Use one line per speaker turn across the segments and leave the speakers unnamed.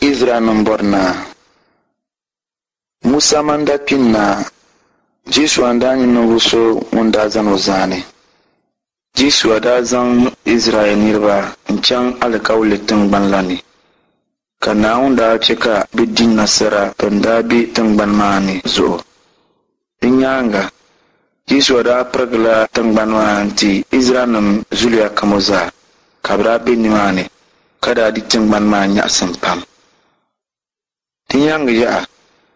Izraɛlnim bɔri naa. Musa man daa kpi n-naai, Jɔshua n-daa nyɛ ninvuɣ so ŋun daa zani o zaani. Jɔshua daa zaŋ Izraɛl niriba n-chaŋ alikauli tiŋgbani la ni, ka Naawuni daa chɛ ka bɛ di nasara bɛn daa be tiŋgbani maa ni zuɣu. Di nyaaŋa, Jɔshua daa pirigila tiŋgbani maa n-ti Izraɛlnim zuliya kam zaa, ka bɛ daa be nimaani, ka daa di tiŋgbani maa nyaɣisim pam. Di nyaaŋa yaha,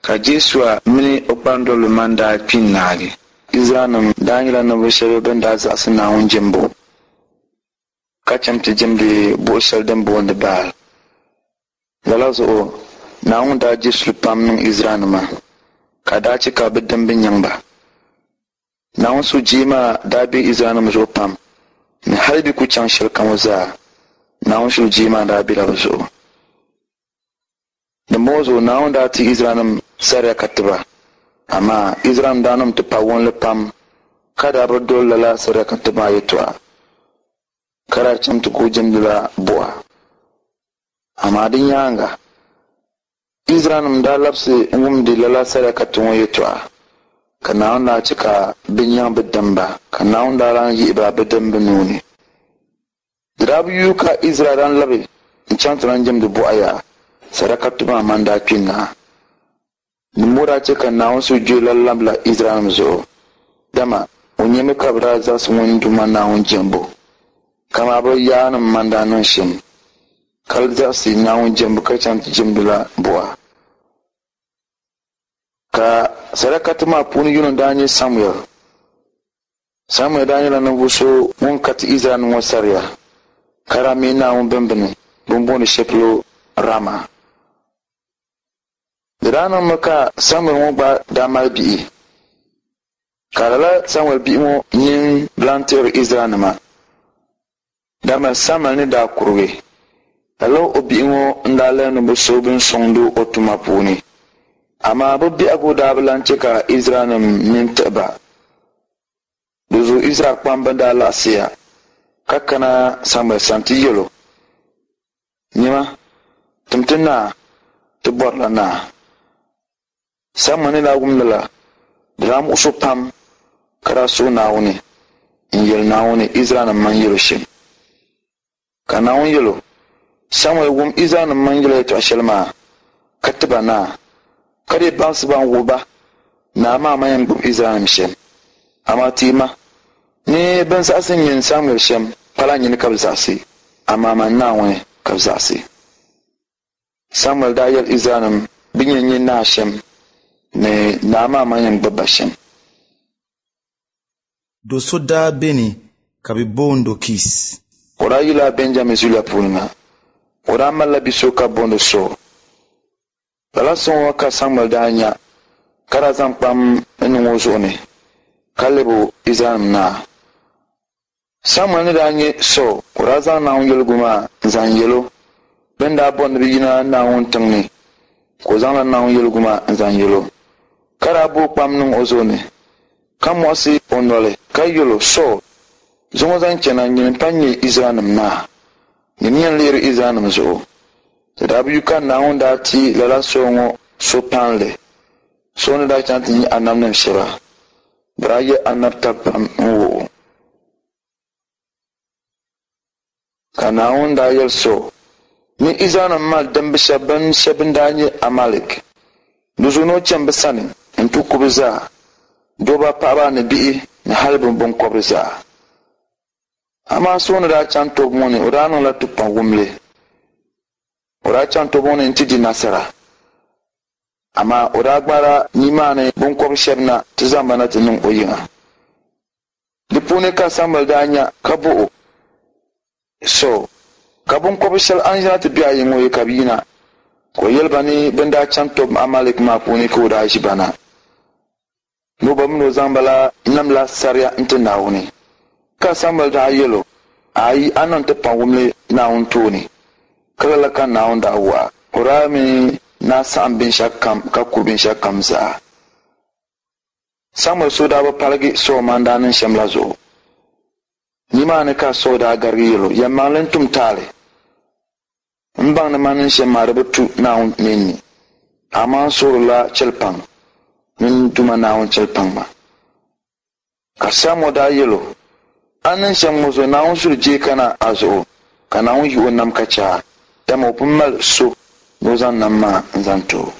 ka Jɔshua mini o kpandoliba maa daa kpi n-naagi. Izraɛlnim daa nyɛla ninvuɣ shɛba bɛn daa zaɣisi Naawuni jɛmbu, ka chaŋ ti jɛmdi buɣ shɛli din booni Baal. Lala zuɣu Naawuni daa je suli pam niŋ Izraɛlnima, ka daa chɛ ka bɛ dimba nyaŋ ba. Naawuni sujee maa daa be Izraɛlnim zuɣu pam ni hal bɛ ku chaŋ shɛlikam zaa, Naawuni sujee maa daa bela bɛ zuɣu. Dimbɔŋɔ zuɣu Naawuni daa ti Izraɛlnim saria ka ti ba, amaa Izraɛlnim daa niŋ tipawumli pam ka daa bi doli lala saria ka ti maa yɛtɔɣa, ka daa chaŋ ti kul jɛmdila buɣa. Amaa di nyaaŋa, Izraɛlnim daa labisi n-wumdi lala saria ka ti ŋɔ yɛtɔɣa, ka Naawuni daa chɛ ka bɛ nyaŋ bɛ dimba, ka Naawuni daa lan yihi ba bɛ dimba nuu ni. Di daa bi yuui ka Izraɛl lan labi n-chaŋ ti lan jɛmdi buɣa yaha, sadaka maa man daa kpi n-naai. Dimbɔŋɔ daa chɛ ka Naawuni sujee lan labila Izraɛlnim zuɣu, dama o nyami ka bɛ daa zaɣisi ŋun Duuma Naawuni jɛmbu kaman bɛ yaannim man daa niŋ shɛm, ka zaɣisi Naawuni jɛmbu ka chaŋ ti jɛmdila buɣa. Ka sadakati maa puuni yino daa nyɛ Samuɛl. Samuɛl daa nyɛla ninvuɣ so ŋun ka ti Izraɛlnim ŋɔ saria, ka daa me Naawuni bimbini bɛ ni booni shɛli polo Rama. Di daa niŋmi ka Samuɛl ŋɔ gba daa mali bihi, ka lala Samuɛl bihi ŋɔ nini bi lan tiɣiri Izraɛlnima, dama Samuɛl ni daa kurigi, lala o bihi ŋɔ n-daa lahi ni bɛ so bɛn sɔŋd o tuma puuni. Amaa bɛ biɛhigu daa bi lan chɛ ka Izraɛlnim nini tiɣi ba. Di zuɣu Izraɛl kpamba daa laɣisiya ka kana Samuɛl sani ti yɛl o, Nyama, tim ti naa, ti bɔrila naa. Samuɛl ni daa wum lala, di daa muɣis o pam, ka daa suhi Naawuni n-yɛli Naawuni Izraɛlnim mini yɛl o shɛm. Ka Naawuni yɛl o, Samuɛl wum Izraɛlnim mini yɛla yɛtɔɣ shɛli maa, ka ti ba naa, ka dii baŋsi ba n-wuhi ba naa maa man yɛn gbibi Izraɛlnim shɛm. Amaa teei ma ni bɛn zaɣisi nyin Samuɛl shɛm pala nyini ka bɛ zaɣisi, amaa man Naawuni ka bɛ zaɣisi. Samuɛl daa yɛli Izraɛlnim bɛ ni yɛn nyɛ naa shɛm ni naa maa man yɛn gbibi ba shɛm.
Do so daa beni ka bɛ boond o Kis.
O daa yila Bɛnjamin zuliya puuni na. O daa malila bi so ka bɛ booni Sool. Lala so ŋɔ ka Samuɛl daa nya, ka daa zaŋ kpam n-niŋ o zuɣu ni, ka lɛb o Izraɛlnim naa. Samuɛl ni daa nya Sool, o daa zaŋ Naawuni yɛligu maa n-zaŋ yɛl o. Bɛ ni daa bɔri ni bɛ yina Naawuni tiŋ ni, ka o zaŋla Naawuni yɛligu maa n-zaŋ yɛl o, ka daa booi kpam niŋ o zuɣu ni, ka muɣisi o noli ka yɛl o, Sool, zuŋɔ zaŋ chana nyini m-pa nyɛ Izraɛlnim naa. Nyini yɛn lihiri Izraɛlnim zuɣu. Di daa bi yu ka Naawuni daa ti lala Sool ŋɔ so paanli. Sool ni daa chaŋ ti nya anabnim shɛba, bɛ daa yɛl anabitali pam n-wuh o. Ka Naawuni daa yɛli Sool ni Izraɛlnim mali dimbi shɛba bɛn shɛba bɛn daa nyɛ Amalɛk. Di zuɣu ni o chani bɛ sani nti ku bɛ zaa, dɔbba, paɣiba ni bihi ni hal bɛ biŋkɔbiri zaa. Amaa Sool ni daa chaŋ tɔbu ŋɔ ni, o daa niŋla tipawumli. O daa chaŋ tɔbu ŋɔ ni nti di nasara. Amaa o daa gbaala nimaani biŋkɔbiri shɛba na ti zaŋ ba na ti niŋ o yiŋa. Di puuni ka Samuɛl daa nya ka bɔh o, Sool, ka biŋkɔbir shɛli a ni ʒina ti be a yiŋ ŋɔ yi ka bɛ yina? Ka o yɛli ba ni bɛ ni daa chaŋ tɔb Amalɛk maa puuni ka o daa ʒi ba na. Ni o ba min o zaŋ ba la namla saria n-ti Naawuni. Ka Samuɛl daa yɛl o, Aai, a niŋ ti paŋwumli Naawuni tooni. Ka lala ka Naawuni daa wuh a. O daa mi ni a saɣim binshɛɣukam ka ku binshɛɣukam zaa. Samuɛl suhu daa bi paligi Sool maa ni daa niŋ shɛm la zuɣu. Nimaani ka Sool daa garigi yɛl o, Yɛlimaŋli n-tum taali. M baŋ ni man ni shɛm maa di bi tu Naawuni nini ni, amaa n suhirila chɛlipaŋ ni n Duuma Naawuni chɛlipaŋ ma. Ka Samuɛl daa yɛl o, A ni niŋ shɛm ŋɔ zuɣu Naawuni suhu jeei kana a zuɣu, ka Naawuni yi o nam ka chɛ a, dama o pun mali so ni o zaŋ nam maa n-zaŋ ti o.